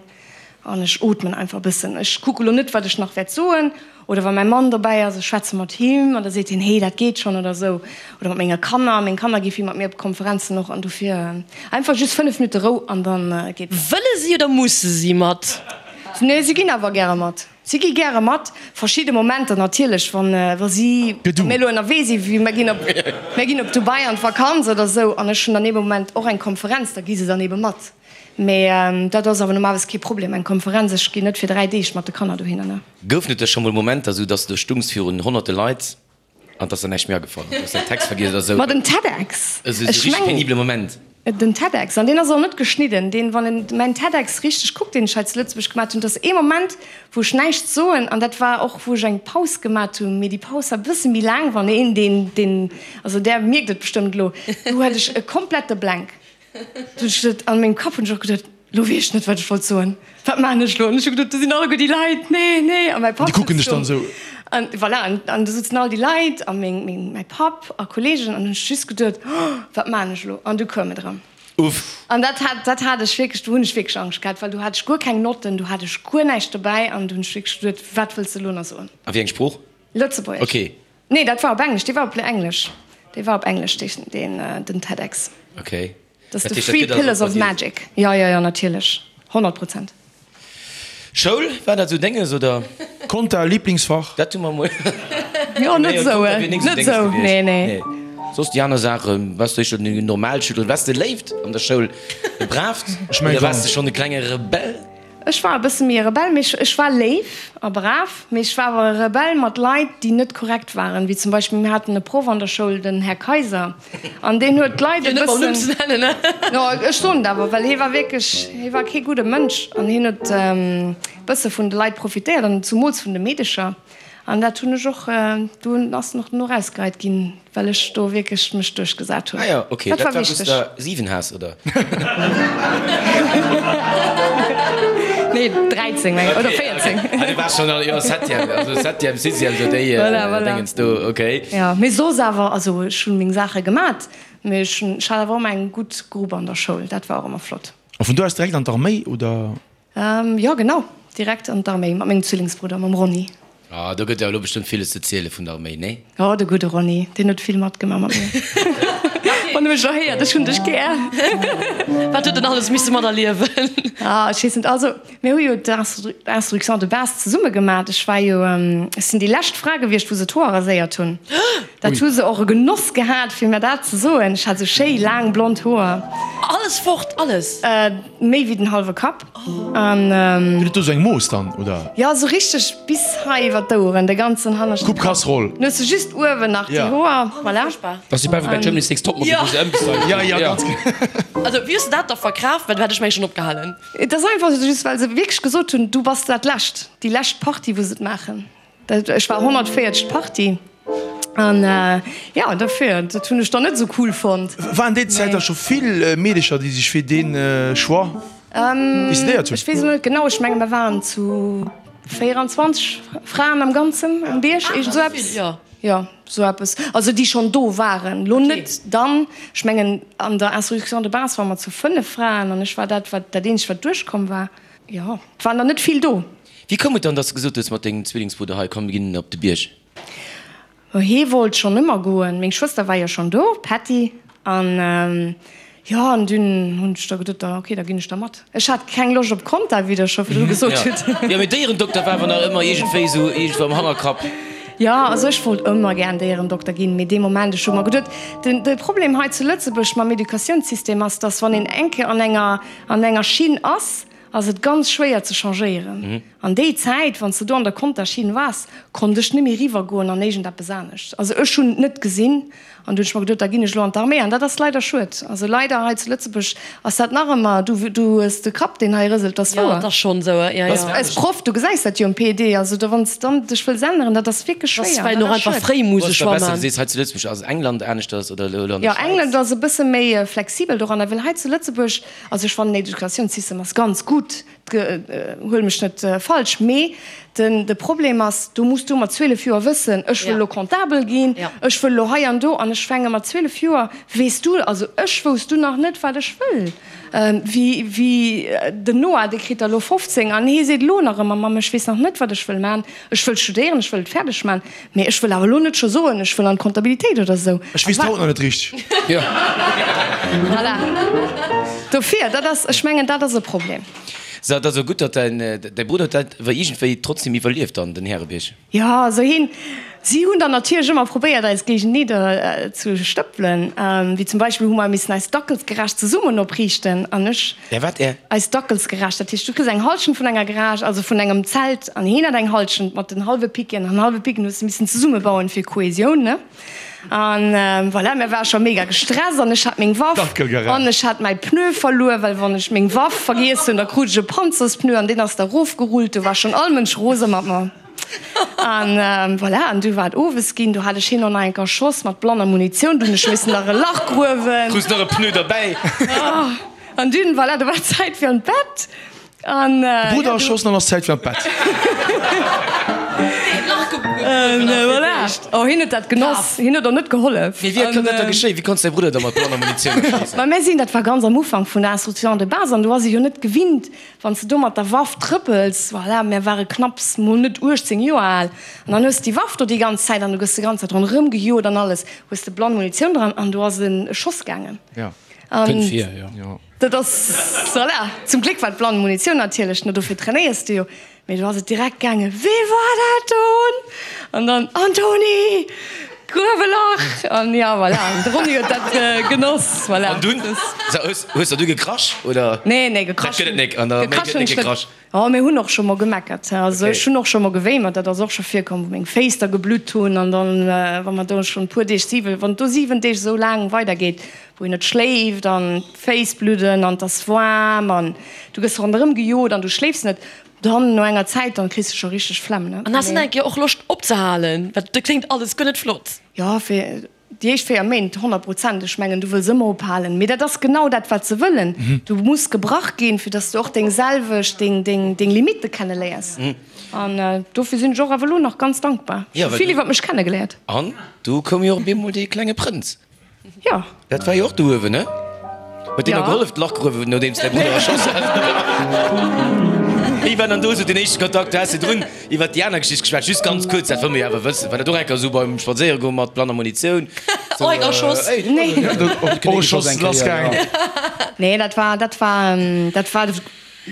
an ech ootmen einfach e bëssen. Ech kucke lo net, wat ech nach wäert soen. Oder wa mäi Mann dobäi ass, ech schwätze mat him an da seet hien, hey, dat geet schonn oder esou. Oder mat menge Kanner, meng Kanner gi vill mat mir op Konferenzen och an dofir einfach just 5 Minutte Rou an dann geet et. Wëlle si oder musse si mat? Nee, si ginn awer gäre mat. Si gi gäre mat. Verschidde Momenter natierlech, wann wa si, wa mir elo ënnerwee si, wéi mir ginn op, mir ginn op Dubai an d'Vakanz oder esou an ech hunn dann ee Moment och eng Konferenz, da gi se dann ebe mat. Mee dat ass awer normalerweis kee Problem, eng Konferenz. Ech ginn net fir 3 Deeg mat de Kanner dohinner, ne. Goufen et da scho mol Momenter, sou dass de do stungs virun honnerte Leit an 't ass der näischt méi agefall, du hues däin Text vergiess oder sou? Ma den TEDx, Esou ech richteg mengen. penibele Moment. Den TEDx, an deen ass och net geschnidden, deen, wann een mäin TEDx richteg kuckt, deen ech hei zu Lëtzebuerg gemat hunn, et ass ee Moment, wou ech näischt soen, an dat war och, wou ech eng Paus gemat hunn, mee déi Paus war e bësse méi laang, wann een deen, deen, also där mierkt et bestëmmt elo, do hat ech e komplette Blank. Du hunn ech geduet, an mengem Kapp hunn ech och geduet, lo weess ech net, wat ech wollt soen, wat maachen ech lo? An ech hu geduet, do sinn alleguer déi Leit, nee, nee. A mäi Papp Déi kucken sëtzt dech dann do. esou. An voilà, an, an do sëtzen all déi Leit a meng, meng, mäi Papp a Kolleegen an hunn ech just geduet, oh, wat maachen ech elo? An du koum et erëm. Uff. An dat hat, dat hat ech wierklech, do hunn ech wierklech Angscht gehat, well do hat ech guer keng Notten, do hat ech guer näischt dobäi an do hunn ech wierklech geduet, wat wëlls de elo nach soen? A wéi eng Sprooch? Lëtzebuergesch. Okay. Nee, dat war op Englesch. Dee war op Englesch. Dee war op Englesch, deen, den TEDx. Okay. Dat ass de Three Pillars of Magic. Jo, jo, jo, natierlech. 100 Prozent. Schoul, war dat esou denges, oder? Konta, Lieblingsfach? Dat hu mer emol. Jo, net esou, net esou, nee, nee. Soss déi aner Saachen, waars du éischter den Normalschüler, waars de léift an der Schoul, e braavt, oder waars de schonn e klenge Rebell? Ech war e bësse méi e Rebell, mee ech war léif a brav, mee ech war awer e Rebell mat Leit, déi net korrekt waren, wéi zum Beispill, mir haten e Proff an der Schoul, den Här Kaiser, an deen huet d'Leit e bëssen, jo, ech soen et awer, well hie war wierklech, hie war kee gudde Mënsch an hien huet e bësse vun de Leit profitéiert an zumools vun de Meedecher. An dat hunn ech och, do ass en och dono erausgeheit ginn, well ech do wierklech mech duerchgesat hunn. Ah jo, ok, Dat dat war war wou s wichteg. der 7 has, oder? Nee, 13 meng ech, oder 14. Ah, du waars schonn an, jo, Septième, also Septième, Sixième, sou déi Voilà, voilà. Dingens do, ok. Jo, mee soss awer, also ech hunn meng Saache gemat, mee ech hunn, ech hat awer och ëmmer eng gutt Grupp an der Schoul, dat war och ëmmer flott. A vun do aus direkt an d'Arméi, oder? Jo genau, direkt an d'Arméi mat mengem Zwillingsbrudder, mam Ronny. Ah, do gëtt jo elo bestëmmt villes ze ziele vun der Arméi, nee? Jo, de gudde Ronny, deen huet vill matgemaach mat mir. Wann e mech elo héiert, ech hunn dech gär. Wat huet en alles misse materliewen? Ah, ech weess net. Also, mir hu jo d'Instruction de base zesumme gemat. Ech war jo, ech sinn déi lescht Fra gewiescht, wou se d'Hoer raséiert hunn. Dat hu se och e Genoss gehat, fir mir dat ze soen. Ech hat esou schéi laang blond Hoer. Alles fort, alles? Méi wéi den hallwe Kapp. An. Gëtt et do sou eng Mooss dann, oder? Jo, esou richteg bis hei iwwer d'Oueren, de ganzen hanneschten Coupe Casserole. Dann hues de just uewen nach déi Hoer, voilà. Dat ass wéi bei Germany's Next Topmodel, wou se ëmgestylt ginn. Jo, jo, ganz genau. Also, wéi hues de dat da verkraaft? Well du hätt ech meng schonn opgehalen. Et ass einfach just, well se wierklech gesot hunn, du bass dat lescht, déi lescht Partie, wou se et maachen. Ech war 140. Partie. An jo, dofir, dat hunn ech dann net esou cool fonnt. Waren déi Zäit da scho vill Meedecher, déi sech fir dee Choix decidéiert hunn? Ech weess elo net genau, ech menge mer waren zu 24 Fraen am Ganzen um Bierg, iergend esou eppes. Jo, esou eppes. Also déi schonn do waren, elo net dann. Ech mengen an der Instruction de base ware mer zu 5 Fraen an ech war dat, wat dat eenzegt wat duerchkomm war. Jo, et waren der net vill do. Wéi koum et dann, dass de gesot hues mat dengem Zwillingsbrudder, hei komm mir ginn op de Bierg? Hee wollt schonn ëmmer goen. Meng Schwëster war jo schonn do, d'Patty. An jo, an dunn hunn ech da geduet, da ok, da ginn ech da mat. Ech hat keng Loscht op Conta, wéi der scho virdru gesot hutt. Jo, mee Déierendokter war awer nach ëmmer iergendwéi esou iergendwou am Hannerkapp. Jo, also ech wollt ëmmer gären Déierendokter ginn, mee dee Moment, ech hu mer geduet, den, de Problem hei zu Lëtzebuerg mam Educatiounssystem ass, dass wann een eng Kéier an enger, an enger Schinn ass, ass et ganz schwéier ze changéieren. An déi Zäit, wann s de do an der Contaschinn waars, konnt ech net méi eriwwer goen an iergendeppes anescht. Also ech hunn et net gesinn an du hunn ech mer geduet, da ginn ech elo an d'Arméi. An dat ass leider schued. Also leider hei zu Lëtzebuerg ass dat nach ëmmer, du du hues de Kapp deen hei rëselt, dat ass Jo, wouer. dat ass schonn esou, jo, jo. Als Proff, du gesäis dat jo um PED, also do wann s dann dech wëlls änneren, dat ass wierklech Dat ass schwéier, well dat och ass einfach schued. fréi Wo muss ass e da Choix besser? Du man. sees hei zu Lëtzebuerg ass England aneschters oder elo an der Jo, Schwäiz? England ass e bësse méi flexibel doranner, well hei zu Lëtzebuerg, also ech fannen den Educatiounssystem ass ganz gutt, Huel mech net falsch, mee de Problem ass, do muss du mat 12 Joer wëssen, ech wëll elo Comptabel ginn, ech wëll elo hei an do, an ech fänke mat 12 Joer, weess du, also ech wousst du nach net, wat ech wëll. Wéi den Noah, dee kritt der elo 15 an hee seet elo nach ëmmer, Mamm, ech weess nach net, wat ech wëll maachen, ech wëll studéieren, ech wëll et fäerdeg maachen, mee ech wëll awer elo net scho soen, ech wëll an d'Comptabilitéit oder esou. Ech weess et haut nach net richteg. Voilà. Dofir, dat ass, ech mengen, dat ass e Problem. So, et ass och gutt, datt däin, däi Brudder huet dat awer iergendwéi trotzdem iwwerlieft dann, den Härebierg. Jo, also hien, si hunn dann natierlech ëmmer probéiert, eis géigeneder ze stëppelen. Wéi zum Beispill hu mer missen eis Dackelsgarage zesummen opriichten an ech. Är wat? Är? Eis Dackelsgarage, dat heescht, du kriss eng Hallschent vun enger Garage, also vun engem Zelt, an hien hat eng Hallschent mat den hallwe Picken an hallwe Picken hues de missen zesummebauen fir Kohesioun, ne? An voilà, mir ware scho mega gestresst an ech hat meng Waff an ech hat mäi Pneu verluer, well wann ech meng Waff vergiess hunn, da krut ech e Panzerspneu an deen ass da rofgerullt. Do war schonn all Mënsch rose mat mer. An voilà, an du war et owes ginn, do hat ech hien och nach eng Kéier erschoss mat blanner Munitioun, du hunn ech missen nach e Lach gruewen. Krus nach e Pneu derbäi. An dunn, voilà, do war et Zäit fir an d'Bett. An, De Brudder erschoss an ass Zäit fir an d'Bett. Voilà. Oh, hien huet dat genoss. Hien huet och net gehollef. Mee wéi konnt dat da geschéien? Wéi konns däi Brudder da mat blanner Munitioun erschéissen? Ma mir sinn, dat war ganz am Ufank vun der Instruction de base, an do ass ee jo net gewinnt, wann s de do mat der Waff trëppels. Voilà, mir ware knapps mol net 18 Joer al. An dann hues de déi Waff do déi ganz Zäit an du gëss de ganz Zäit ronderëm gejot an alles. Hues de blann Munitioun dran an do ass e Schoss gaangen. Kënnt vir, jo. Dat ass, voilà, zum Gléck war et blann Munitioun natierlech, no dofir trainéiers de jo, mee do ass et direkt gaangen, Wee war dat don? An dann, Antoni! Gruef e Lach! An ja, voilà, an de Ronny huet dat genoss, voilà. An dunn, hues hues der du gekrasch, oder? Nee, nee, gekrasch. Dat gëtt et nek, an der Arméi gëtt net gekrasch. Oh, mir hunn och scho mol gemeckert, also ech hunn och scho mol gewéimert, dat ass och scho virkomm, wou meng Féiss da geblutt hunn an dann, wa mer do schonn e puer Deeg, siwe, wann et do 7 Deeg esou laang weidergeet, wou een net schléift an d'Féiss bludden an et ass waarm an du gëss ronderëm gejot an du schléifs net, dann no enger Zäit, dann kriss de scho richteg Flemm, ne. An has de net eng Kéier och Loscht opzehalen? Well dat kléngt alles guer net flott. Jo, fir Déi éischt 4 Méint, 100 Prozent. Ech mengen, du wëlls ëmmer ophalen. Mee dat ass genau dat, wat se wëllen. Du muss gebrach ginn, fir dass du och deng selwecht, deng, deng, deng Limitte kenneléiers. An dofir sinn ech och awer elo nach ganz dankbar. Ech hu vill iwwer mech kennegeléiert. An du koum jo och op eemol dee klenge Prënz. Jo. Dat war jo och do uewen, ne? Huet deen der gehollef, d'Lach gruewen, nodeems däi Brudder erschoss hat? Wéi war dann do esou den éischte Kontakt? Du has virdrun iwwer déi aner Geschicht geschwat, just ganz kuerz, dat wëlle mir jo awer wëssen. War dat och eng Kéier esou beim Spadséieregoen mat blanner Munitioun? Och eng erschoss? Och e Schoss lassgaangen? Nee, dat war, dat war, dat war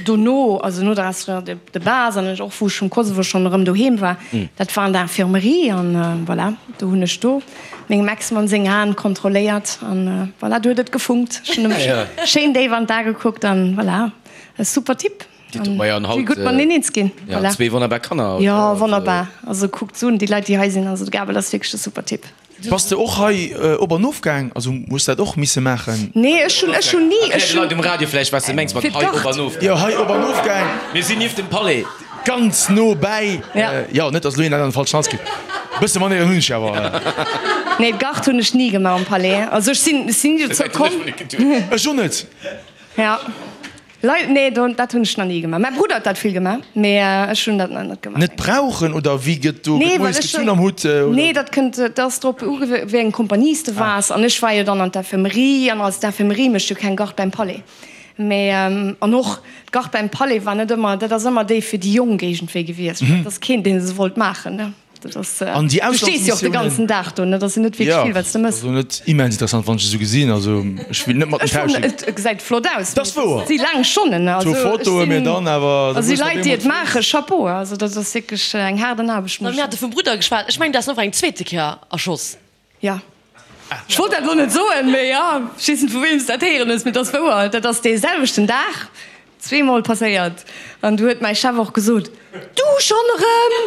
Dono, also no der Instruction de de base an ech och wou ech vum Kosovo schonn erëm doheem war, dat war an der Infirmerie an voilà, do hunn ech do mengem Ex-Mann seng Aen kontrolléiert an voilà, do huet et gefunkt. Ech hunn em schéin déif an d'A gekuckt an voilà, e super Typ an si gutt mateneen eens ginn. Voilà. Zwee wonnerbar Kanner. Jo, wonnerbar. Also kuckt se un, déi Leit déi hei sinn, also de Gabel ass wierklech e super Typ. Bass de och hei op an of gaang? Also hues dat och misse maachen? Nee, ech hunn, ech hunn ni, ech hunn. Erklär de Leit um Radio vläicht, wat s de mengs mat hei op an of gaang. Jo, hei op an of gaang. Mir sinn nieft dem Palais. Ganz no bäi. Jo, net dass elo een dat an de falschen Hals kritt. Bësse Manéieren hunn ech awer. Nee, d'Gard hunn ech ni gemaach am Palais. Also ech sinn, ech sinn ni dozou komm. Ech och net. Ja. Lei, nee, do, dat hunn ech nach ni gemaach. Mäi Brudder huet dat vill gemaach, mee ech hunn dat nach net gemaach. Net brauchen oder wéi gëtt do, Nee, gëtt well moies ech gezunn am Hutt oder? Nee, dat kënnt, dat ass drop ugew, wéi eng Kompanie s de waars. An ech war jo dann an d'Infirmerie an als d'Infirmerie mécht jo keng Garde beim Palais. Mee, an och d'Garde beim Palais war net ëmmer, dat ass ëmmer déi fir déi Jonk iergendwéi gewiescht. Dat ass keen, dee se wollt maachen, ne. Dat ass, An déi du stees jo och de ganzen Auslandsmissiounen? Dag do, ne? Dat ass jo net wierklech vill, wat s de mëss. Also net immens interessant, wann ech esou gesinn. Also ech will net mat den Ech fannen, tauschen. et gesäit flott aus, Dat ass mee wouer. et si laang Stonnen, ne? Zwou Also ech Fotoe, mee sinn, dann awer, da also déi muss op Leit, déi eemol et maachen, Chapeau, also dat ass wierklech eng haarden Aarbecht, muss Mir ech hate vum Brudder geschwat. Ech mengen, du has en och eng zweete Kéier erschoss. Jo. Ech wollt dat elo net soen, mee jo, ech weess net vu weem s dat héieren hues, mee et ass wouer. Dat ass dee selwechten Dag zweemol passéiert. An du huet mäi Chef och gesot, Du schonn erëm?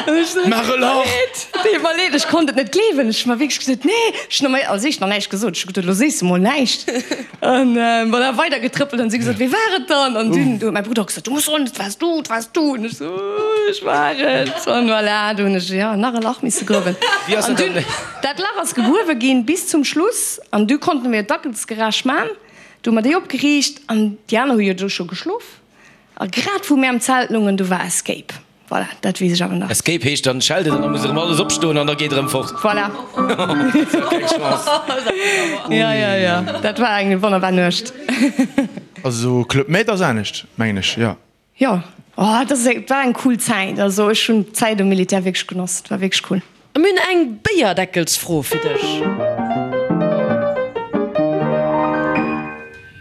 An ech sou, Maach e Lach! Leed, deet mer leed, ech konnt et net gleewen. Ech hu mer wierklech gesot, Nee, ech hunn als éischt nach näischt gesot. Ech hu geduet, Elo sees de mol näischt. An voilà, weider getrëppelt an si gesot, Wee war et dann? An dunn huet mäi Brudder gesot, Du muss soen, et waars du, et waars du. An ech sou, Ech war et. An voilà, du hunn ech, jo, nach e Lach misse gruewen. Wéi ass An dat dunn, dann? dat Lach ass gegruewe ginn bis zum Schluss an du konnte mir d'Dackelsgarage man. Du hu mer déi opgeriicht an déi aner hu jo do scho geschlof. A grad wou mir am Zelt lungen, du war Escape. Voilà, dat weess ech awer nach. Escape heescht dann schellt et an da muss erëm alles opstoen an da geet erëm fort. Voilà. Keng Chance. Ja, ja, ja, dat war eng wonnerbar Nuecht. Also Club Med ass anescht, mengen ech, jo. Jo, oh, dat ass, war eng cool Zäit. Also ech hunn d'Zäit um Militär wierklech genoss, et war wierklech cool. A mir hunn eng Béierdeckelsfro fir dech.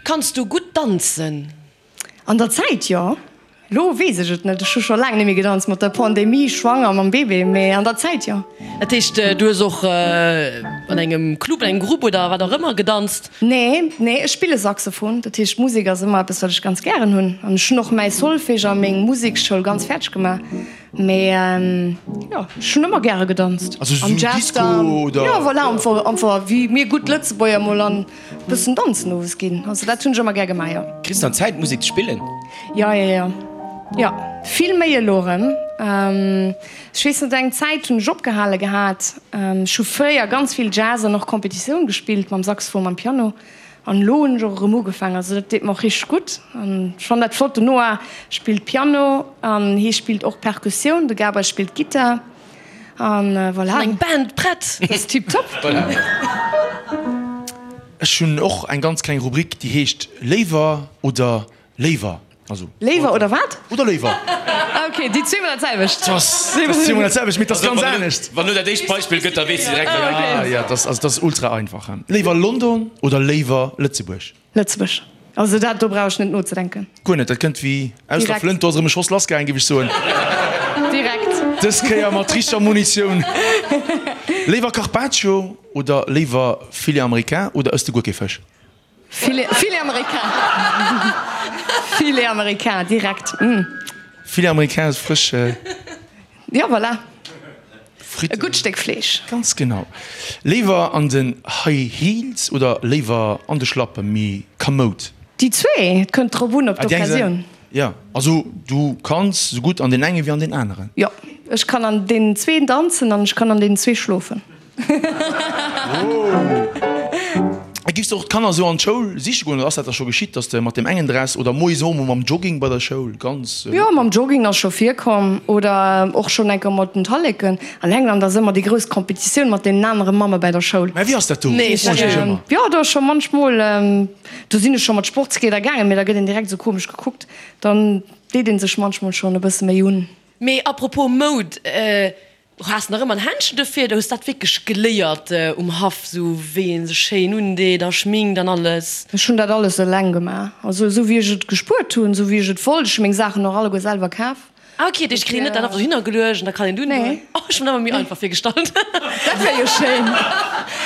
Kanns du gutt danzen? An der Zäit jo, lo weess ech et net. Ech hu scho laang net méi gedanzt, mat der Pandemie, schwanger, mam Bébé, mee an der Zäit jo. Dat heescht, du hues och an engem Club, an engem Grupp oder wat och ëmmer gedanzt? Nee, nee, ech spille Saxophon. Dat heescht, Musek ass ëmmer eppes, wat ech ganz gären hunn. An ech hunn och mäi Solfège a meng Musekschoul ganz fäerdeg gemaach. Mee jo, ech hunn ëmmer gäre gedanzt. Also Am sou Jazz Disco dann, oder? jo, voilà, einfach wéi mir gutt Lëtzebuerger mol an Bëssen danzen owes ginn, also dat hunn ech ëmmer gär gemaach, jo. Kriss dann Zäit Musek ze spillen? Jo, jo, jo, jo, vill méi elo erëm. Ech weess net, eng Zäit hunn ech opgehale gehat. Ech hu fréier ganz vill Jazz an och Competitioun gespillt mam Saxophon, mam Piano an elo hunn ech och erëm ugefaangen. Also dat deet mer och richteg gutt an ech fannen dat flott. Den Noah spillt Piano an hie spillt och Perkussioun, de Gabriel spillt Gittar. An voilà. Eng Band prett! Dat ass tiptop. Voilà. Ech hunn och eng ganz kleng Rubrik, déi heescht Léiwer oder Léiwer. Also. Léiwer oder wat? Oder Léiwer. Ah ok, déi zweemol dat selwecht. Dat ass zweemol dat selwecht, mee dat ass ganz anescht. Wann elo dat éischt Beispill gëtt, da weess de direkt, wat Ah ja, dat ass, also dat ass ultra einfach. Léiwer London oder léiwer Lëtzebuerg? Lëtzebuerg. Also dat do brauch ech net nozedenken. Guer net, dat kënnt wéi aus der Direkt. Flënt. Do ass erëm e Schoss lassgaangen, géif ech soen. Direkt. Dës Kéier mat richteger Munitioun. Léiwer Carpaccio oder léiwer Filet américain oder ëss de guer kee Fësch? Filet, Filet américain. Filet américain, direkt. Mm. Filet américain ass frësch. Jo, voilà. Fritten. E gutt Stéck Fleesch. Ganz genau. Léiwer an den High Heels oder léiwer an de Schlappen, méi kamoud? Déi zwee, et kënnt drop un, op d'Occasioun. Jo, also du kanns sou gutt an deen enge wéi an deen aneren. Jo, ech kann an deenen zween danzen an ech kann an deenen zwee schlofen. A giffs de och d'Kanner esou an d'Schoul siche goen, oder ass dat da scho geschitt, dass de mat deem engen Dress oder moies och emol mam Jogging bei der Schoul ganz. Jo, mam Jogging ass scho virkomm oder och schonn eng Kéier mat den Talleken. An England ass ëmmer déi grouss Competitioun mat deenen anere Mamme bei der Schoul. Mä wéi ass dat do? Nee, Froen ech mech ëmmer. Jo, do ass scho munchmol, do sinn ech scho mat Sportskleeder gaangen, mee da gëtt een direkt esou komesch gekuckt. Dann deet ee sech munchmol schonn e bësse méi un. Mee apropos Moud, Has nach ëmmer en Händchen dofir oder hues dat wierklech geléiert um Haff, sou wéi een sech schéin undeet a schminkt an alles? Ech hunn dat alles eleng gemaach, also esou wéi ech et gespuert hunn, esou wéi ech et wollt. Ech hu meng Saachen och alleguer selwer kaf. Ah ok, dat heescht, kritt een net dat einfach dohinner geluecht an da kann een dunn. Nee. Oh, ech hunn dat ëmmer méi einfach virgestallt. Dat wär jo schéin.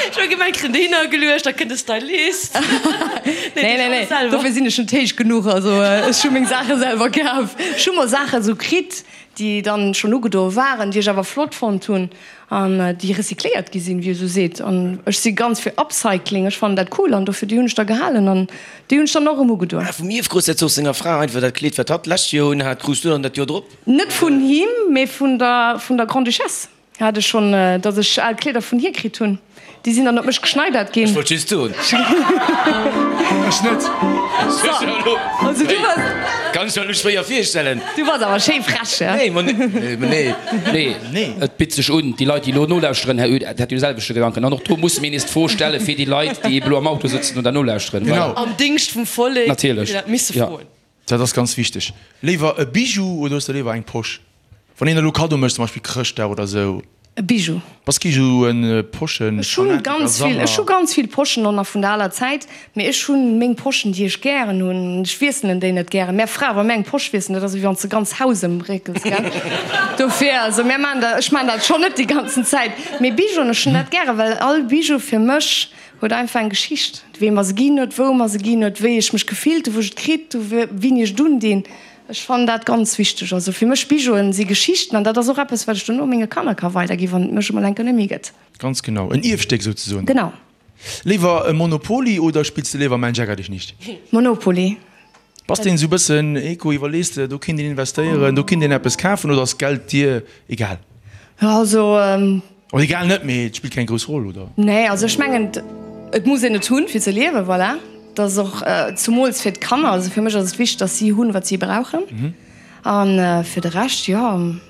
Ech hu gemengt, kritt een dohinner geluecht, da kënnt de Stylist. Nee, nee, nee, dofir sinn ech net héich genuch. Also ech hu meng Saache selwer kaf. Ech hu mol Saache sou kritt, déi dann schonn ugedoe waren, déi ech awer flott fonnt hunn an déi recycléiert gi sinn, wéi ee sou seet. An ech si ganz fir Upcycling, ech fannen dat cool an dofir déi hunn ech da gehalen an déi hunn ech dann och erëm ugedoen. Ah, vum Ierfgroussherzog senger Fra einfach dat Kleed, wat hatt d'lescht Joer un hat, krus du dann dat Joer drop? Net vun him, mee vun der vun der Grande-Duchesse. Hat ech schonn, dass ech al Kleeder vun hir kritt hunn. Déi sinn dann op mech geschneidert ginn. Ech wollt just soen. Ech net. Also du bass. Kann ech mer elo schwéier virstellen. Du bass awer schéi frech, ja? Nee, ma nee. Nee, nee, et bitt sech un. Déi Leit, déi elo nolauschteren, Här Oed, dat hunn de selwechte Gedanken. An och do musse mir nees d'Fro stelle fir déi Leit, déi ebe elo am Auto sëtzen oder nolauschteren. Genau. Am Dingscht vum Vollek. Natierlech. Déi dat misse froen. Dat ass ganz wichteg. Léiwer e Bijou oder hues de léiwer eng Posch? Wann een elo Kaddo mécht, zum Beispill Chrëschtdag oder sou. E Bijou. Bass kee sou en Poschen Ech hunn ganz vill, ech hu ganz vill Poschen och nach vun der aler Zäit, mee ech hunn meng Poschen déi ech gären hunn. Ech wiesselen déi net gären. Mär Frae wa mär eng Posch wiesselen, dat ass ewéi wann s de ganz Haus ëmréckels, gell. Dofir, also mär maachen dat, ech maachen dat schonn net déi ganzen Zäit. Mee Bijouen, ech hunn dat gären, well all Bijou fir mech huet einfach eng Geschicht, wee mer se ginn huet, wou mer se ginn huet, wéi ech mech gefillt hu wou ech et kritt hu, wéini ech et undinn. Ech fannen dat ganz wichteg. Also fir mech Bijouen si Geschichten an dat ass och eppes wat ech dono menge Kanner ka weiderginn, wann et mech emol eng Kéier net méi gëtt. Ganz genau, en Ierfstéck souzesoen. Genau. Léiwer e Monopoly oder spills de léiwer Mensch ärger dich nicht? Monopoly. Bass de esou bëssen Eco, iwwerlees de do kinnt een investéieren, do kinnt een eppes kafen oder ass Geld dir egal? Also. Oder egal net, mee et spillt keng grouss Roll, oder? Nee, also ech mengen, et muss een et hunn, fir ze liewen, voilà. Dat ass och zumools fir d'Kanner, also fir mech ass et wichteg, datt si hunn, wat si brauchen. A fir de Rescht, jo,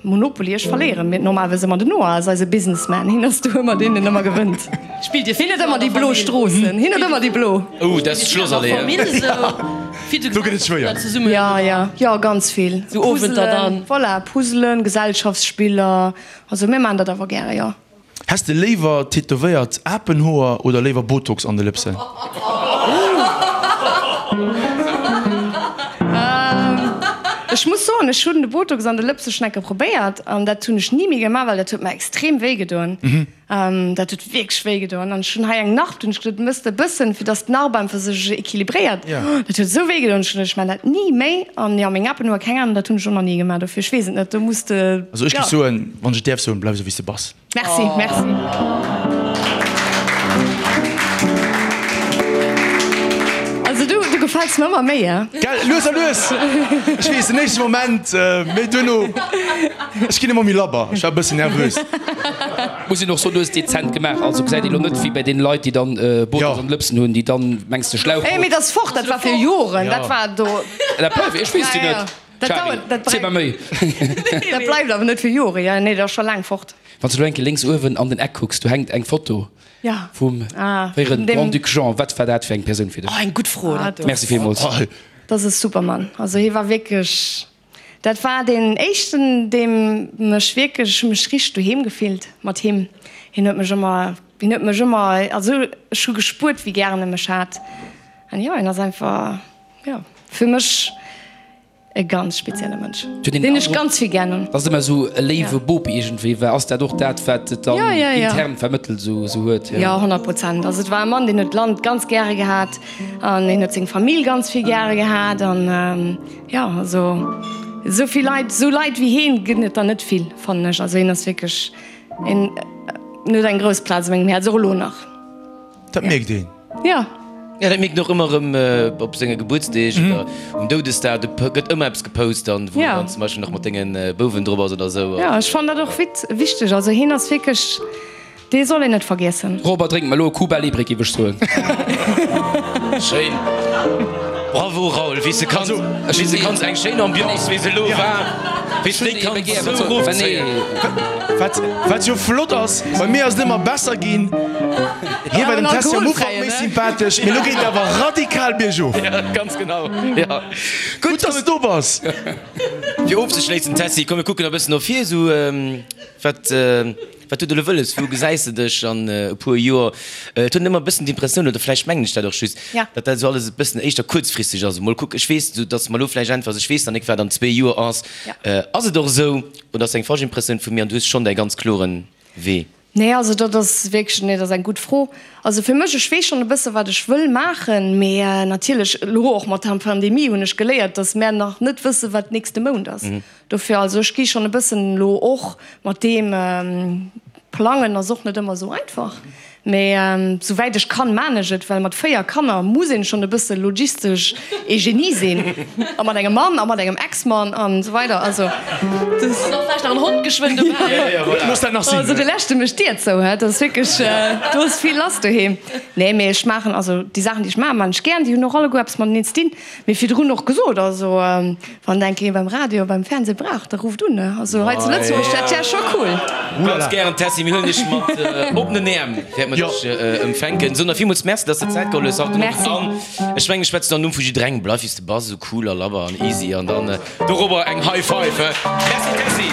Monopoly, ech verléieren mir normalerweis ëmmer. Den Noah ass eise Businessman, hien ass do ëmmer deen, deen ëmmer gewënnt. Spillt Dir Hien huet ëmmer déi blo Stroossen, hien huet ëmmer déi blo. Oh, dat ass d'Schlossallee, he? Do gëtt et schwéier. Jo, jo, jo, ganz vill. Sou Owenter dann. Voilà, Puzzelen, Gesellschaftsspiller. Also mir maan dat awer gäre, jo. Häss de léiwer tätowéiert Apenhoer oder léiwer Botox an de Lëpsen? Ech muss soen, ech hunn de Botox an de Lëpse schon enke probéiert an dat hunn ech ni méi gemaach, well dat huet mer extrem wéi gedoen. Dat huet wierklech wéi gedoen an ech hunn hei eng Narb, dunn hunn ech gesot, mëss de e bëssen, fir dass d'Narb einfach sech equilibréiert. Dat huet esou wéi gedoen, ech hunn gesot, ech maan dat ni méi an jo, meng Apenhoer, keng Ahnung, dat hunn ech och nach ni gemaach, dofir ech weess et net, do muss de, Also ech jo. géif soen, wann ech et däerf soen, bleif esou wéi s de bass. Merci, merci. Also du, du gefäls mer ëmmer méi, hein? Gell, lues a lues. Ech weess, den éischte Moment, mee duerno, ech ginn ëmmer méi labber. Ech war e bëssen nervös. Muss een och soen, du hues dezent gemaach, also gesäit een elo net wéi bei deene Leit, déi dann Botox an de Lëpsen hunn, déi dann, mengs de, Schlauch. Mee dat ass fort, dat war fir Joren, dat war do. Dat bleift, ech weess déi net. Dat Charly, dauert, dat ziel mer méi. Dat bleift awer net fir Jore, jo, nee, dat ass scho laang fort. Wann s de elo eng Kéier lénks uewen an den Eck kucks, do hänkt eng Foto Ja. vum Ah, fréiere vun deem. Grand-Duc Jean. Wat war dat fir eng Persoun fir dech? Oh, eng gutt Fro, dat do. Merci villmools. Dat ass e super Mann. Also hie war wierklech, dat war deen éischten, deem mech wierklech, ech hu mech richteg doheem gefillt mat him. Hien huet mech ëmmer, hien huet mech ëmmer, also ech hu gespuert, wéi gären e mech hat. An jo, hien ass einfach, jo, fir mech E ganz spezielle Mënsch, deen ech ganz vill gär hunn. Dass et ëmmer esou e léiwe Bop iergendwéi war. Ass dat och dat, wat et dann intern vermëttelt esou huet? Jo, 100 Prozent. Also et war e Mann, deen huet d'Land ganz gäre gehat an hien huet seng Famill ganz vill gäre gehat. An jo, also esou vill Leit, esou Leit wéi hien gëtt et der net vill, fannen ech. Also hien ass wierklech en, en huet eng grouss Plaz a mengem Häerz, och elo nach. Dat mierkt een. Ja. Ja, dat mierkt een och ëmmer erëm op senge Gebuertsdeeg oder um Doudesdag. Do gëtt ëmmer eppes gepost dann, wou dann zum Beispill nach mat denge Bouwen drop ass oder esou. Ja, ech fannen dat och wichteg. Also hien ass wierklech, dee soll een net vergiessen. Robert, drénk mer elo e Cuba Libre, géif ech soen. Schéin. Bravo Raoul, wéi s de kanns, wéi s de kanns eng schéin Ambiance, wéi se elo war, wéi s de déi kanns esou erofzéien. Wat, wat jo flott ass, bei mir ass et ëmmer besser ginn. Hie war dem Tessy am Ufank méi sympathesch, mee elo geet et awer radikal biergof. Ja, ganz genau. Ja. Gutt, dass de do bass. Fir ofzeschléissen, Tessy, komm mir kucken e bëssen no vir, esou wat, Wat huet elo wëlles? Wou gesäis de dech an e puer Joer? Et huet een ëmmer e bëssen d'Impressioun, oder vläicht mengen ech dat och just, datt dat esou alles e bëssen éischter kuerzfristeg ass. Mol kucken, ech weess, datt s de mer elo vläicht äntwers, ech weess nach nik, wat an zwee Joer ass. Ass et och esou oder ass eng falsch Impressioun vu mir an du hues schonn däi ganz kloren Wee? Nee, also dat ass wierklech, nee, dat ass eng gutt Fro. Also fir mech, ech weess schonn e bësse wat ech wëll maachen, mee natierlech elo och mat der Pandemie hunn ech geléiert, datt mär nach net wësse wat nächste Mount ass. Dofir, also ech gi schonn e bëssen elo och mat deem, plangen ass och net ëmmer esou einfach. Mee souwäit ech kann, maan ech et, well mat 4 Kanner muss een schon e bësse logistesch ee Genie sinn, a mat engem Mann a mat engem Ex-Mann an esou weider. Also das. An och vläicht nach en Hond geschwënn dobäi. Looss dat nach sinn. Also de leschte mécht d'Dier zou, hä, dat ass wierklech, do ass vill lass doheem. Nee, mee ech maachen, also déi Saachen déi ech maachen, maachen ech gären, déi hunn och alleguer eppes mateneen ze dinn. Mee virdrun och gesot, also wann enk ee beim Radio, beim Fernseh brauch, da rufft un. Also hei zu Lëtzebuerg, dat wär scho cool. Ganz gären, Tessy, mir huelen dech mat oppenen Äerm, wäerte mer dech empfänken. Sou, na villmools Merci, dass de Zäit geholl hues haut den Owend. An ech mengen, ech schwätzen am Numm vu jidderengem, bleif wéi s de bass, esou cool a labber an easy an dann dorobber eng High Five. Merci, Tessy.